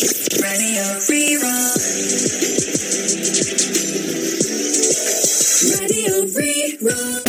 Radio Rí-Rá. Radio Rí-Rá.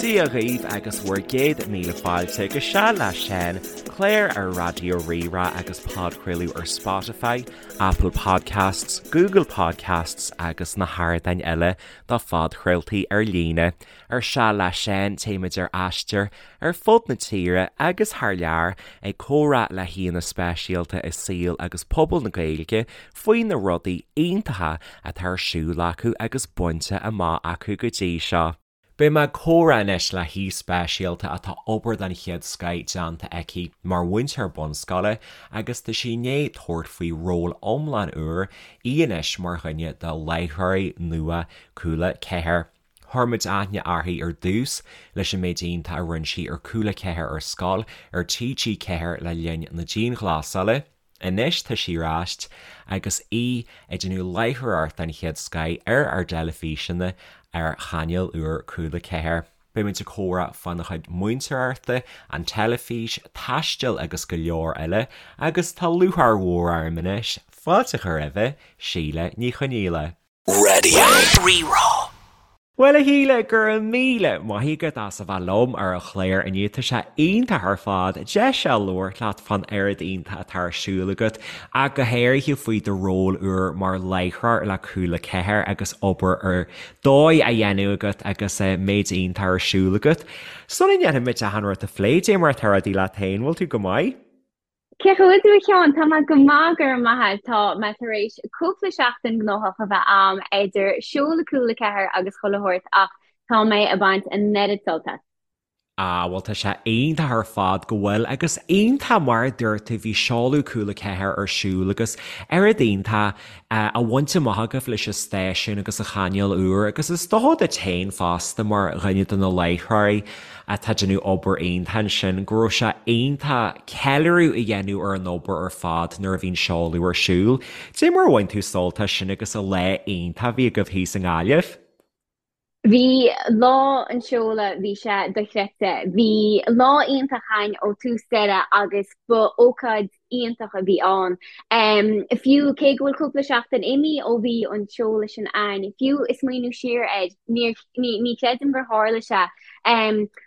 Dia dhaoibh agus bhur gcéad míle fáilte go Seal le Seán, clár ar Raidió Rí-Rá agus podchraoladh ar Spotify, Apple Podcasts, Google Podcasts agus na hardáin eile do phodchraoltaí ar líne. Ar Seal le Seán téimid ar aistear ar fud na tíre agus thar lear ag comhrá le haíonna speisialta i saol agus pobal na Gaeilge faoi na rudaí iontacha atá ar siúl acu agus bainte amach acu go dtí seo. Beidh mé ag comhrá anois le haoi speisialta atá obair den chéad scoith déanta aici mar mhúinteoir bunscoile agus tá sí i ndiaidh tabhairt faoi ról iomlán úr, í anois mar dhuine de láithreoirí nua Cúla 4. Chuir muid aithne uirthi ar dtús leis an méid iontach a rinne sí ar Cúla 4 ar Scoil ar TG4 le linn na dianghlasála. Anois tá sí ar ais agus í ag déanamh láithreoireacht den chéad scoith ar ár dteilifíseanna ar chainéal úr Cúla 4. Beidh muid ag comhrá fána chuid múinteoireachta, an teilifís, taisteal agus go leor eile agus tá lúcháir mhór orm anois fáilte a chur roimhe, Síle Ní Chonaola. Radio Rí-Rá. Bhuel a Shíle, go raibh míle maith agat as a bheith liom ar an chlár inniu. Tá sé iontach ar fad deis a labhairt leat fán oiread iontach atá ar siúl agat ach go háirithe faoi do ról úr mar láithreoir le Cúla 4 agus obair ar dóigh á dhéanamh agat agus méid iontach ar siúl agat. Sula ndéanfaimid achan rud a phlé, dé mar atá rudaí leat féin, bhfuil tú go maith? Cén chaoi a bhfuil tú a Sheáin? Tá mé go maith, go raibh maith agat. Tá mé tar éis cúpla seachtain gnóthach a bheith a'm idir seoladh Cúla 4 agus chuile shórt ach tá mé ag baint an oiread sult as. Ah bhuel tá sé iontach ar fad go bhfuil agus iontach mar a dúirt tú bhí seoladh Cúla 4 ar siúl agus oiread iontach á bhaint amach agaibh leis an stáisiún agus an chainéal úr agus is dócha duit féin fosta mar dhuine de na láithreoirí atá ag déanamh obair iontach ansin, go raibh sé iontach ceiliúradh a dhéanamh ar an obair ar fad nuair a bhí an seoladh ar siúl. Dé mar a bhain tú sult as sin agus an lá iontach a bhí agaibh thíos i nGaillimh? Bhí lá an seoladh, bhí sé dochreidte. Bhí lá iontach againn ó tús deireadh agus ba ócáid iontach a bhí ann. Fiú cé go bhfuil cúpla seachtain imithe ó bhí an seoladh sin ann, fiú ag smaoineamh siar air, níor, ní, ní chreidim gur tharla sé.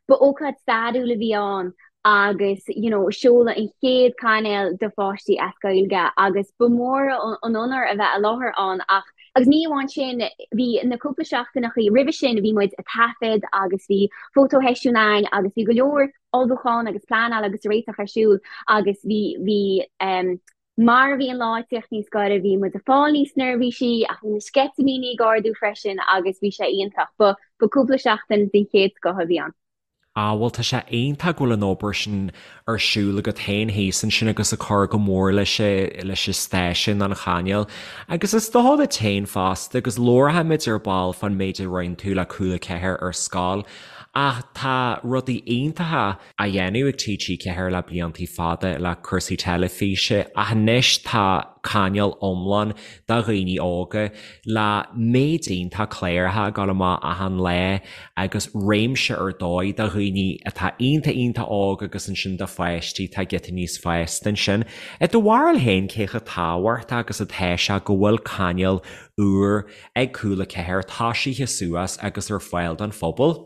Ba ócáid stairiúil a bhí ann agus you know seoladh an chéad cainéal do pháistí as Gaeilge agus ba mhór an onóir a bheith i láthair ann ach agus ní amháin sin, bhí na cúpla seachtaineachaí roimhe sin bhí muid ag taifead agus bhí fótósheisiún ann agus bhí go leor ullmhúchán agus pleanáil agus réiteach ar siúl agus bhí, bhí ehm mar a bhí an lá ag tíocht níos gaire bhí muid ag fáil níos neirbhísí ach bhí na sceitimíní ag ardú freisin agus bhí sé iontach. Ba, ba cúpla seachtain den chéad scoth a bhí ann. Ah bhuel tá sé iontach go bhfuil an obair sin ar siúl agat féin thíos ansin agus ag cur go mór leis leis an stáisiún, an chainéal. Agus is dócha duit féin fosta agus labharfaimid ar ball fán méid a rinne tú le Cúla 4 ar scoil ach tá rudaí iontacha á dhéanamh ag TG4 le bliantaí fada le cúrsaí teilifíse ach anois tá cainéal iomlán do dhaoine óga le méid iontach cláracha ag dul amach achan lá agus réimse ar dóigh do dhaoine atá iontach iontach óg agus ansin do pháistí atá giota níos fásta ansin. I do bharúil féin cé chomh tábhachtach agus atá sé go bhfuil cainéal úr ag Cúla 4 tosaithe suas agus ar fáil don phobal?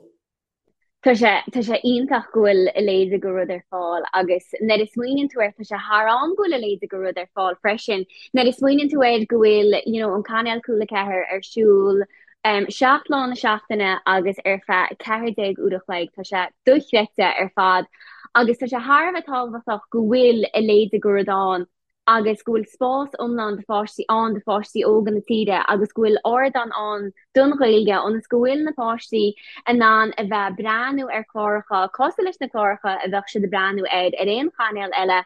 Tá sé, tá sé iontach go bhfuil a leithéid de rud ar fáil agus nuair a smaoiníonn tú air, tá sé thar am go bhfuil a leithéid de rud ar fáil freisin. Nuair a smaoiníonn tú air go bhfuil, you know, an cainéal Cúla 4 ar siúl um, 7 lá na seachtaine agus ar feadh 14 uair a chloig, tá sé dochreidte ar fad agus tá sé thar a bheith tábhachtach go bhfuil a leithéid de rud ann. agus go bhfuil spás iomlán do pháistí ann, do pháistí óga na tíre agus go bhfuil ardán ann don Ghaeilge ionas go bhfuil na páistí in ann a bheith ag breathnú ar chláracha cosúil leis na cláracha a bheadh siad ag breathnú air ar aon chainéal eile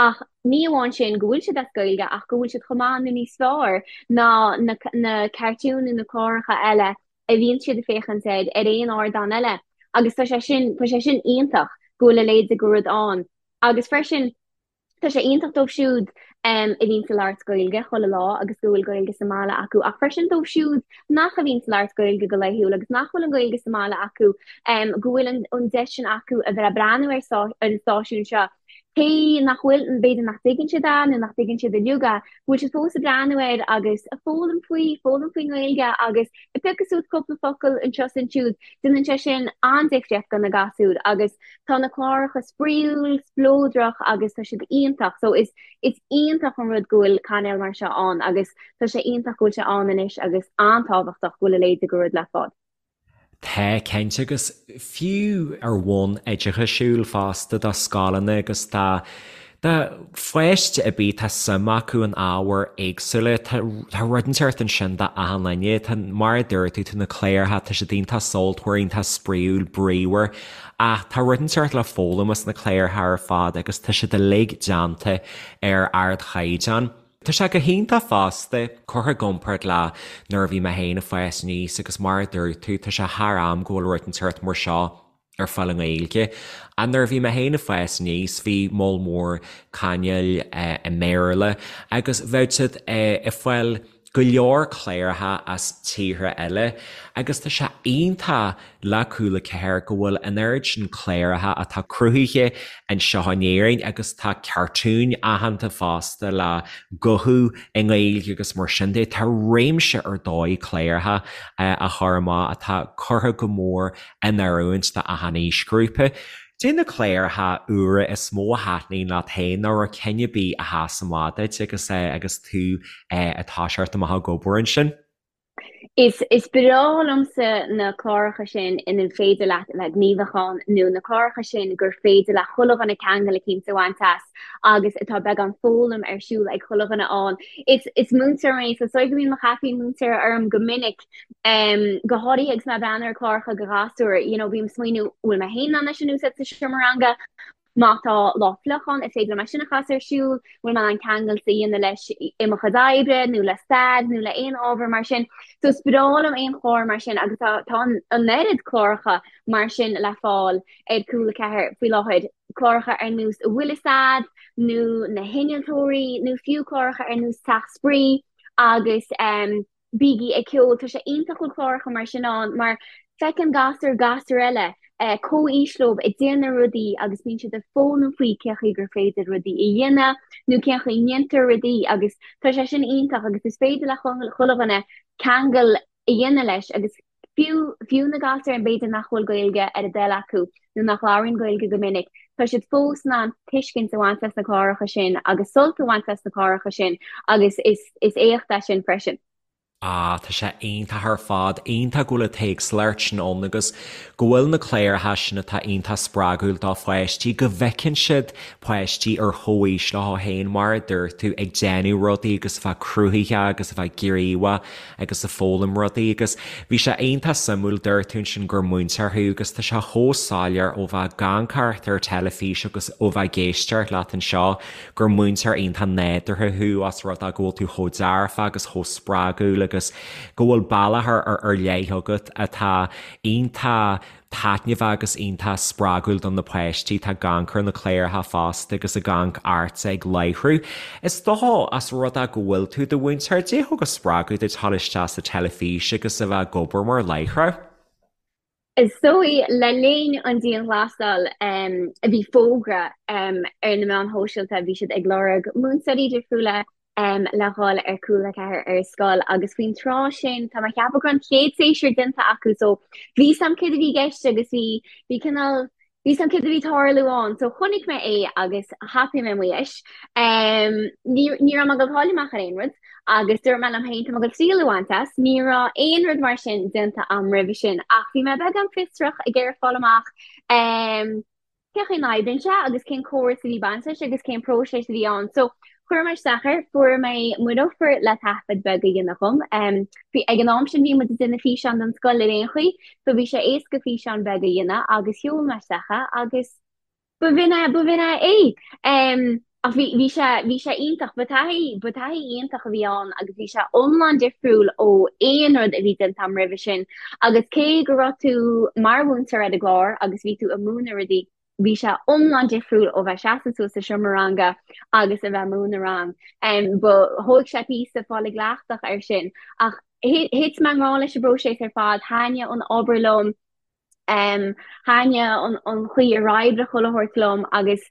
ach ní amháin sin go bhfuil siad as Gaeilge ach go bhfuil siad chomh maith nó níos fearr ná na na cartúin nó na cláracha eile a bhíonn siad ag féachaint air ar aon ardán eile agus tá sé sin tá sé sin iontach go bhfuil a leithéid de rud ann agus freisin Tá sé iontach dóibh siúd a bhíonns ag labhairt Gaeilge chuile lá agus go bhfuil Gaeilge sa mbaile acu ach freisin dóibh siúd nach a bhíonns ag labhairt Gaeilge go laethúil agus nach bhfuil an Ghaeilge sa mbaile acu, go bhfuil an deis sin acu a bheith ag breathnú ar an stáisiún seo. Cé nach bhfuil, b'fhéidir nach dtuigeann siad é nó nach dtuigeann siad uilig é, go bhfuil siad fós ag breathnú air agus ag foghlaim faoi, foghlaim faoin nGaeilge agus ag piocadh suas cúpla focal anseo is ansiúd, déanann sé sin an-difríocht do na gasúir agus tá na cláracha spraíúil, spleodrach agus tá siad iontach. So is is iontach an rud go bhfuil cainéal mar seo ann agus tá sé iontach go bhfuil sé ann anois agus an-tábhachtach go bhfuil a leithéid de rud le fáil. Tá, cinnte, agus fiú ar bhonn oideachasúil fosta do scoileanna agus do do pháiste ar bith tá suim acu in ábhair éagsúla, tá tá rud inteacht ansin do achan duine. Tá, mar a dúirt tú, tá na cláracha, tá siad iontach sultmhar, iontach spraíúil, bríomhar, ach tá rud inteacht le foghlaim as na cláracha ar fad agus tá siad uilig déanta ar ardchaighdeán. Tá sé go hiontach fosta, curtha i gcomparáid le nuair a bhí mé féin ag fás aníos agus mar a dúirt tú, tá sé thar am go bhfuil rud inteacht mar seo ar fáil i nGaeilge. Ach nuair a bhí mé féin ag fás aníos, bhí moll mór cainéil i mBéarla agus bheadh siad ag fáil go leor cláracha as tíortha eile agus tá sé iontach le Cúla 4 go bhfuil an oiread sin cláracha atá cruthaithe anseo in Éirinn agus tá cartúin aitheanta fosta le guthú i nGaeilge agus mar sin de. Tá réimse ar dóigh cláracha á chur amach atá curtha go mór in oiriúint do achan aoisghrúpa. Cad é na cláracha úra is mó a thaitníonn leat féin nó raibh ceann ar bith a sheas amach duit agus agus tú ag toiseacht amach ag obair ansin? Is is breá liomsa na cláracha sin ina féidir leat a bheith gníomhach ann nó na cláracha sin gur féidir le chuile dhuine ceangal eicínt a bhaint as agus atá beagán foghlaim ar siúl ag chuile dhuine ann. Is is múinteoir mé so is dóigh go mbíonn mo chaipín múinteora orm go minic, go háirithe agus mé ag breathnú ar chláracha do ghasúir, you know bím ag smaoineamh bhfuil mé féin in ann é sin a úsáid sa seomra ranga? Má tá lá fliuch ann, is féidir liom é sin a chasadh ar siúl, bhfuil mé in ann ceangal a dhéanamh leis i mo chuid oibre nó le stair nó le aon ábhar mar sin. So is breá liom aon chlár mar sin agus tá tá an oiread cláracha mar sin le fáil ar Cúla 4 faoi láthair, cláracha ar nós An Bhfuil Fhios A'd nó Na hInnealtóirí nó fiú cláracha ar nós Teach Spraoi agus Bígí ag Ceol. Tá sé iontach go bhfuil cláracha mar sin ann mar feiceann gasúir gasúir eile comhaois leo ag déanamh rudaí agus bíonn siad ag foghlaim faoi cén chaoi gur féidir rudaí a dhéanamh nó cén chaoi a ndéantar rudaí agus tá sé sin iontach agus is féidir le chuile dhuine ceangal a dhéanamh leis agus fiú fiú na gasúir b'fhéidir nach bhfuil Gaeilge ar a dtoil acu nó nach labhraíonn Gaeilge go minic, tá siad fós in ann tuiscint a bhaint as na cláracha sin agus sult a bhaint as na cláracha sin agus is is éacht é sin freisin. Ah, tá sé iontach ar fad, iontach go bhfuil an t-éagsúlacht sin ann agus go bhfuil na cláracha sin atá iontach spreagúil do pháistí, go bhfeiceann siad páistí ar chomhaois leo féin, mar a dúirt tú, ag déanamh rudaí agus a bheith cruthaitheach agus a bheith gníomhach agus ag foghlaim rudaí agus bhí sé iontach suimiúil, dúirt tú ansin gur múinteoir thú agus tá sé chomh soiléir ó bheith ag amharc ar teilifís agus ó bheith ag éisteacht leat anseo gur múinteoir iontach nádúrtha thú os rud é go bhfuil tú chomh dearfach agus chomh spreagúil agus go bhfuil bealach ar leith agat atá iontach taitneamhach agus iontach spreagúil do na páistí atá ag amharc ar na cláracha fosta agus ag amharc ortsa ag láithriú. Is dócha, os rud é go bhfuil tú i do mhúinteoir, cad é a thug an spreagadh duit dul isteach sa teilifís agus a bheith ag obair mar láithreoir? Is dóigh, le linn an dianghlasáil, bhí fógra ar na meáin shóisialta, bhí siad ag lorg múinteoirí difriúla le dhul ar Cúla 4 ar scoil agus faoin tráth sin tá mé ag ceapadh go raibh an chéad séasúr déanta acu so bhí 's a'm céard a bhí i gceist agus bhí bhí cineál bhí 's a'm céard a bhí ag tarlú ann so chonaic mé é agus thapaigh mé mo dheis. Ní ní raibh mé ag dul cailleadh amach ar aon rud agus dúirt mé liom féin tá mé ag dul triail a bhaint as. Ní raibh aon rud mar sin déanta a'm roimhe sin ach bhí mé beagán fiosrach ag iarraidh fáil amach cén chaoi a n-oibríonn sé agus cén córas a bhí baint leis agus cén próiseas a bhí ann. So chuir mé isteach air, fuair mé m'offer le taifead beag a dhéanamh dhom. Bhí, ag an am sin bhí muid ag déanamh físeán don scoil ar aon chaoi, so bhí sé éasca físeán beag a dhéanamh agus sheol mé isteach é agus b'in é, b'in é é. Ach bhí, bhí sé, bhí sé iontach, ba taithí, ba taithí iontach a bhí ann agus bhí sé iomlán difriúil ó aon rud a bhí déanta agam roimhe sin. Agus cé go raibh tú mar mhúinteoir ar an gclár agus bhí tú ag múineadh rudaí, Bhí sé iomlán difriúil ó bheith seasamh suas sa seomra ranga agus a bheith ag múineadh rang. Ba thóig sé píosa fáil i gcleachtadh air sin. Ach thit mé i ngrá leis an bpróiseas ar fad, thaitnigh an obair liom, thaitnigh an chaoi ar oibrigh chuile shórt liom agus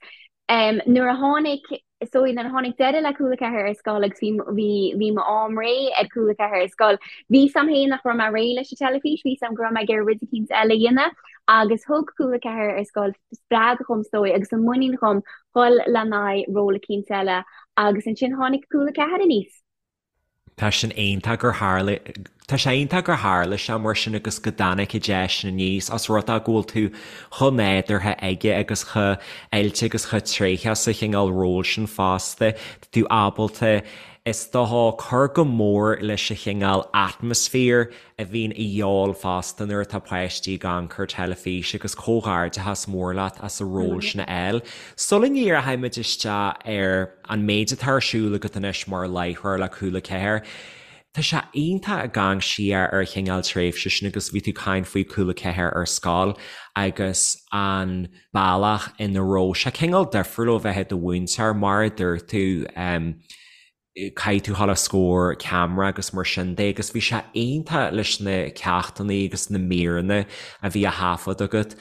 nuair a tháinig so nuair a tháinig deireadh le Cúla 4 ar scoil agus bhí bhí bhí m'am réidh ar Cúla 4 ar scoil, bhí 's a'm féin nach raibh mé réidh leis an teilifís, bhí 's a'm go raibh mé ag iarraidh rud eicínt eile a dhéanamh agus thug Cúla 4 ar scoil spreagadh dhom is dóigh agus an muinín dhom dhul le n-aghaidh ról eicínt eile agus ansin tháinig Cúla 4 aníos. Tá sin iontach gur tharla, tá sé iontach gur tharla sé mar sin agus go dtáinig an deis sin aníos os rud é go bhfuil tú chomh nádúrtha aige agus chomh oilte agus chomh tréitheach sa chineál ról sin fosta. Tá tú ábalta, is dócha, cur go mór leis an chineál atmaisféar a bhíonn a dhíobháil fosta nuair atá páistí ag amharc ar teilifís agus comhghairdeachas mór leat as an ról sin a fháil. Sula ndíreochaimid isteach ar an méid atá ar siúl agat anois mar láithreoir le Cúla 4, tá sé iontach ag amharc siar ar an chineál tréimhse sin agus bhí tú ag caint faoi Cúla 4 ar scoil agus an bealach ina raibh sé cineál difriúil ó bheith i do mhúinteoir mar a dúirt tú. Caithfidh tú dhul os comhair ceamara agus mar sin de agus bhí sé iontach leis na ceachtanna agus na míreanna a bhí á thaifead agat.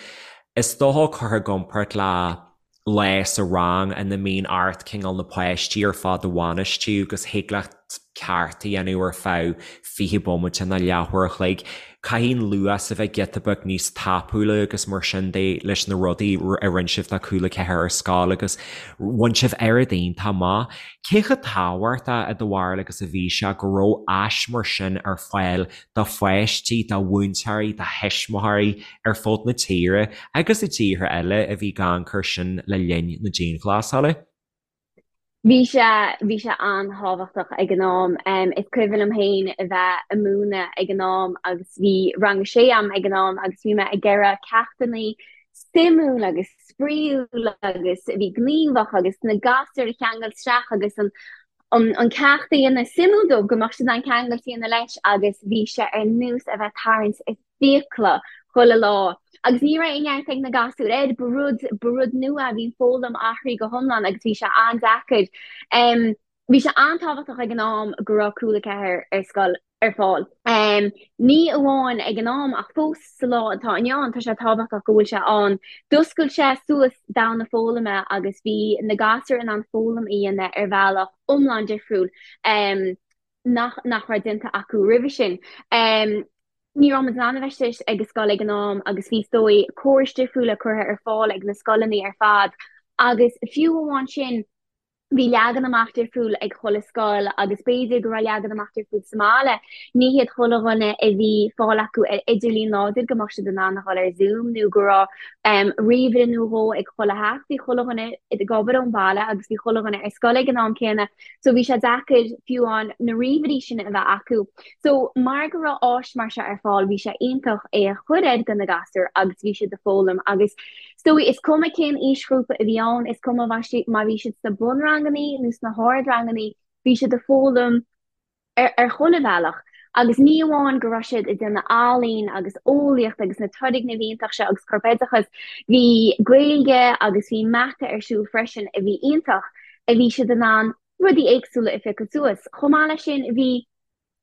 Is dócha curtha i gcomparáid le lá sa rang ina mbíonn ort cineál na páistí ar fad a bhainistiú agus thig leat ceacht a dhéanamh ar feadh 20 bomaite nó leathuair a chloig. Caithfidh an luas a bheith giota beag níos tapúla agus mar sin de leis na rudaí a rinne sibh do Cúla 4 ar scoil agus bhain sibh oiread iontach amach. Cé chomh tábhachtach i do bharúil agus a bhí sé go raibh áis mar sin ar fáil do pháistí, do mhúinteoirí, do thuismitheoirí ar fud na tíre agus i dtíortha eile a bhí ag amharc air sin le linn na dianghlasála? Bhí sé, bhí sé an-tábhachtach ag an am. Is cuimhin liom féin a bheith ag múineadh ag an am agus bhí rang a sé a'm ag an am agus bhí mé ag iarraidh ceachtanna suimiúil agus spraíúil agus a bhí gníomhach agus na gasúir a cheangal isteach agus an an ceacht a dhéanamh suimiúil dóibh go mbeadh siad in ann ceangal a dhéanamh leis agus bhí sé ar nós a bheith ag tarraingt fiacla chuile lá. Agus ní raibh aon neart ag na gasúir air, ba rud, ba rud nua a bhí an foghlaim athraithe go hiomlán agus bhí sé an-deacair. Bhí sé an-tábhachtach ag an am go raibh Cúla 4 ar scoil ar fáil. Ní amháin ag an am ach fós sa lá atá inniu ann tá sé tábhachtach go bhfuil sé ann. D'oscail sé suas domhan na foghlama agus bhí na gasúir in ann foghlaim a dhéanamh ar bhealach iomlán difriúil. nach nach raibh déanta acu roimhe sin. Ní raibh muid in ann a bheith istigh ag an scoil ag an am agus bhí is dóigh córais difriúla curtha ar fáil ag na scoileanna ar fad agus fiú amháin sin bhí leagan amach difriúil ag chuile scoil agus b'fhéidir go raibh leagan amach difriúil sa mbaile. Ní hiad chuile dhuine a bhí fáil acu ar idirlíon láidir go mbeadh siad in ann a dhul ar Zoom nó go raibh ríomhaire nó dhó ag chuile theach. Bhí chuile dhuine ag obair ón bhaile agus bhí chuile dhuine ar scoil ag an am céanna. So bhí sé deacair fiú amháin na ríomhairí sin a bheith acu. So mar go raibh áis mar seo ar fáil bhí sé iontach é a chur air do na gasúir agus bhí siad ag foghlaim agus is dóigh is cuma cén aoisghrúpa a bhí ann, is cuma má bhí siad sna bunrangannaí nó sna hardrangannaí, bhí siad ag foghlaim ar ar chuile bhealach agus ní amháin go raibh siad ag déanamh ealaín agus eolaíocht agus na turgnaimh iontach seo agus corpoideachas, bhí Gaeilge agus bhí mata ar siúl freisin a bhí iontach, a bhí siad in ann rudaí éagsúla a phiocadh suas. Chomh maith leis sin bhí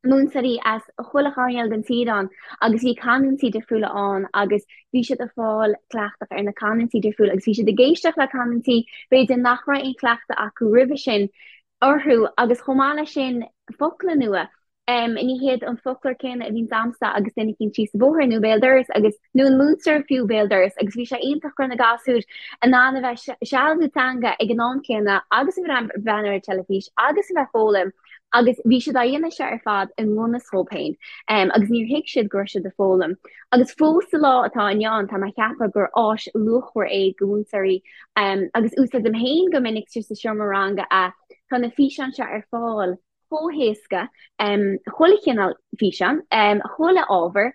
múinteoirí as chuile choirnéal den tír ann agus bhí canúintí difriúla ann agus bhí siad ag fáil cleachtadh ar na canúintí difriúla agus bhí siad ag éisteacht le canúintí b'fhéidir nach raibh aon chleachtadh acu roimhe sin orthu agus chomh maith leis sin focla nua. Ní hiad an foclóir céanna a bhíonns a'msa agus duine eicínt síos an bóthar nó béal dorais agus, nó an múinteoir fiú béal dorais agus bhí sé iontach go raibh na gasúir in ann a bheith ag sealbhú teanga ag an am céanna agus a bheith ag breathnú ar an teilifís agus a bheith ag foghlaim agus bhí siad á dhéanamh seo ar fad i ngan fhios dhóibh féin agus níor thuig siad go raibh siad ag foghlaim. Agus fós sa lá atá inniu ann tá mé ag ceapadh gur áis luachmhar é do mhúinteoirí Agus úsáidim féin go minic sa seomra ranga é. Tá na físeáin seo ar fáil chomh héasca, chuile chineál físeán, chuile ábhar.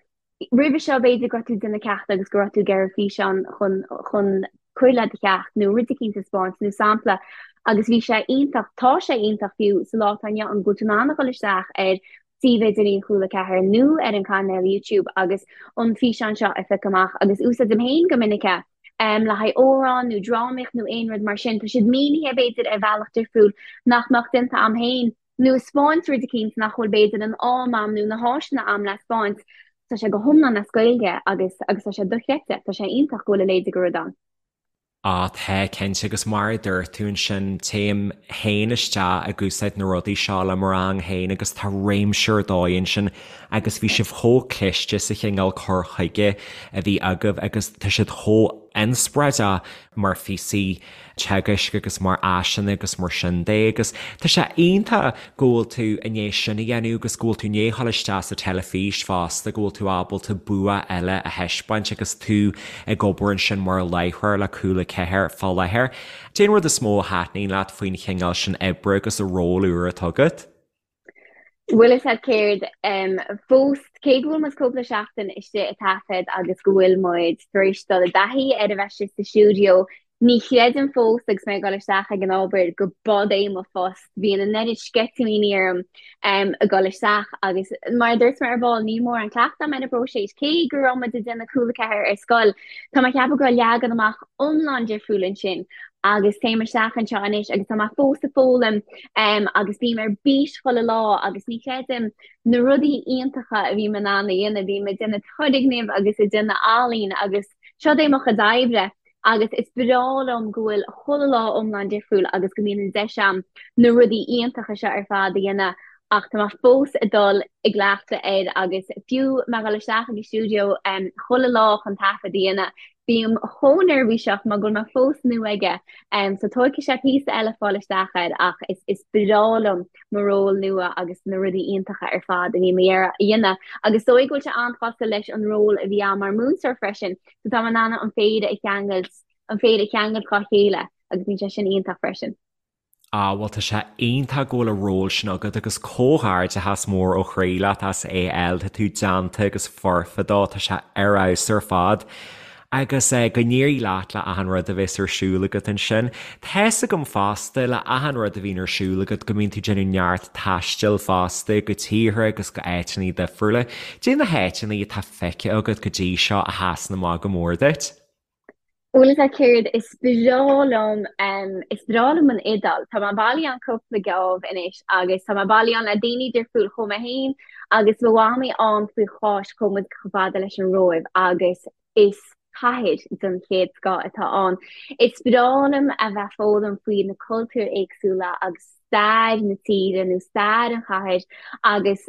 Roimhe seo b'fhéidir go raibh tú ag déanamh ceachta agus go raibh tú ag iarraidh físeán chun chun cur le do cheacht nó rud eicínt a 'speáint nó sampla agus bhí sé iontach, tá sé iontach fiú sa lá atá inniu ann go bhfuil tú in ann a dhul isteach ar suíomh idirlín Chúla 4 nó ar an cainéal YouTube agus an físeán seo a phiocadh amach agus úsáidim féin go minic é. le haghaidh amhrán nó drámaíocht nó aon rud mar sin, tá siad mínithe b'fhéidir ar bhealach difriúil nach mbeadh déanta a'm féin nó ag 'spáint rud eicínt nach bhfuil b'fhéidir an am a'm nó na háiseanna a'm le 'spáint. Tá sé go hiomlán as Gaeilge agus agus tá sé dochreidte, tá sé iontach go bhfuil a leithéid de rud ann. Á, tá, cinnte, agus mar a dúirt tú ansin, téim féin isteach ag úsáid na rudaí seo le mo rang féin agus tá réimse ar dóigh ansin agus bhí sibh chomh cliste sa chineál cur chuige a bhí agaibh agus tá siad chomh inspioráideach mar phíosaí teagaisc agus mar áiseanna agus mar sin de agus tá sé iontach go bhfuil tú i ndiaidh sin a dhéanamh agus go bhfuil tú i ndiaidh dhul isteach sa teilifís fosta, go bhfuil tú ábalta bua eile a thaispeáint agus tú ag obair ansin mar láithreoir le Cúla 4 fá láthair. Cad é an rud is mó a thaitníonn leat faoin chineál sin oibre agus an ról úr atá agat? Bhfuil fhios a'd céard, fós, cé go bhfuil muid cúpla seachtain istigh ag taifead agus go bhfuil muid tar éis dul i dtaithí ar a bheith istigh sa stiúideo, ní chreidim fós agus mé ag dul isteach ag an obair go b'fhad é mo phost. Bíonn an oiread sceitimíní orm ag dul isteach agus mar a dúirt mé ar ball, níl mórán cleachtadh a'm ar an bpróiseas. Cé go raibh muid ag déanamh Cúla 4 ar scoil, tá mé ag ceapadh go raibh leagan amach iomlán difriúil ansin. agus téim isteach anseo anois agus tá mé fós ag foghlaim agus bím ar bís chuile lá agus ní chreidim na rudaí iontacha a bhím in ann a dhéanamh, bím ag déanamh turgnaimh agus ag déanamh ealaín agus seo é mo chuid oibre agus is breá liom go bhfuil chuile lá iomlán difriúil agus go mbíonn an deis a'm na rudaí iontacha seo ar fad a dhéanamh ach tá mé fós ag dul i gcleachtadh air agus fiú mé ag dul isteach ag an stiúideo chuile lá chun taifead a dhéanamh, bím chomh neirbhíseach mar go bhfuil mé fós nua aige. So tógfaidh sé píosa eile fáil isteach air ach is is breá liom mo ról nua agus na rudaí iontacha ar fad a bhím a dhéanamh. Agus is dóigh go bhfuil sé an-chosúil leis an ról a bhí a'm mar mhúinteoir freisin, so tá mé in ann an péire a cheangailt, an péire a cheangailt dhá chéile agus bíonn sé sin iontach freisin. Ah, bhuel tá sé iontach go bhfuil an ról sin agat agus comhghairdeachas mór ó chroí leat as é a fháil, tá tú déanta agus foirfe dó, tá sé ar fheabhas ar fad. Agus eh, go n-éirí leat le achan rud a bheas ar siúl agat ansin. Tá's agam fosta le achan rud a bhíonn ar siúl agat go mbíonn tú ag déanamh neart taistil fosta go tíortha agus go áiteanna difriúla. Cad é na háiteanna atá feicthe agat go dtí seo a sheasann amach go mór duit? Bhfuil fhios a'd céard, is breá liom, is breá liom an Iodáil. Tá mé bailithe ann cúpla geábh anois agus tá mé bailithe ann le daoine difriúil. Chuaigh mé féin agus mo mhamaí ann faoi Cháisc, chuaigh muid chomh fada leis an Róimh agus is cathair den chéad scoth atá ann. Is breá liom a bheith ag foghlaim faoi na cultúir éagsúla agus stair na tíre nó stair an chathair agus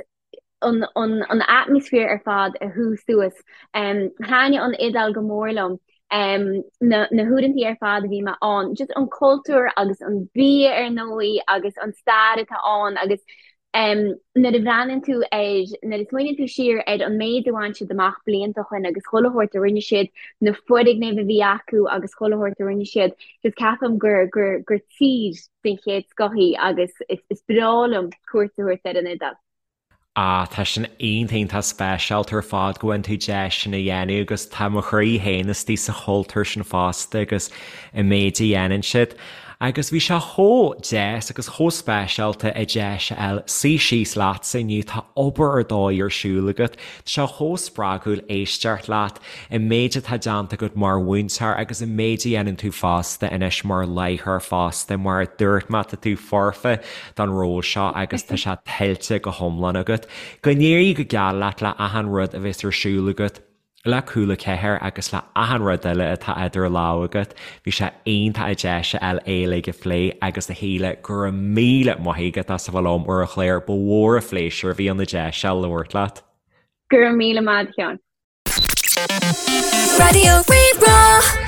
an an atmaisféar ar fad a shú suas. Thaitnigh an Iodáil go mór liom. Na na huaireantaí ar fad a bhí mé ann. Just an cultúr agus an bia ar ndóigh agus an stair atá ann agus nuair a bhreathnaíonn tú ar, nuair a smaoiníonn tú siar ar an méid a bhain siad amach blianta ó shin agus chuile shórt a rinne siad, na foirgnimh a bhí acu agus chuile shórt a rinne siad, just ceapaim gur gur gur tír den chéad scoth í agus is is breá liom cuairt a thabhairt ar an Iodáil. Ah, tá sin iontach iontach speisialta ar fad go bhfaigheann tú deis sin a dhéanamh agus tá mo chroí féin istigh sa chultúr sin fosta agus an méid a dhéanann siad. Agus bhí sé chomh deas agus chomh speisialta an deis a fháil suí síos leatsa inniu, tá obair ar dóigh ar siúl agat, tá sé chomh spreagúil éisteacht leat. an méid atá déanta agat mar mhúinteoir agus an méid a dhéanann tú fosta anois mar láithreoir fosta, mar a dúirt mé, tá tú foirfe don ról seo agus tá sé tuillte go hiomlán agat. Go n-éirí go geal leat le achan rud a bheas ar siúl agat le Cúla 4 agus le achan rud eile atá idir lámha agat. Bhí sé iontach an deis a fháil é uilig a phlé agus a Shíle, go raibh míle maith agat as a bheith liom ar an chlár, ba mhór an phléisiúr a bhí ann an deis seo labhairt leat. Go raibh míle maith agat, a Sheáin. Raidió Rí-Rá.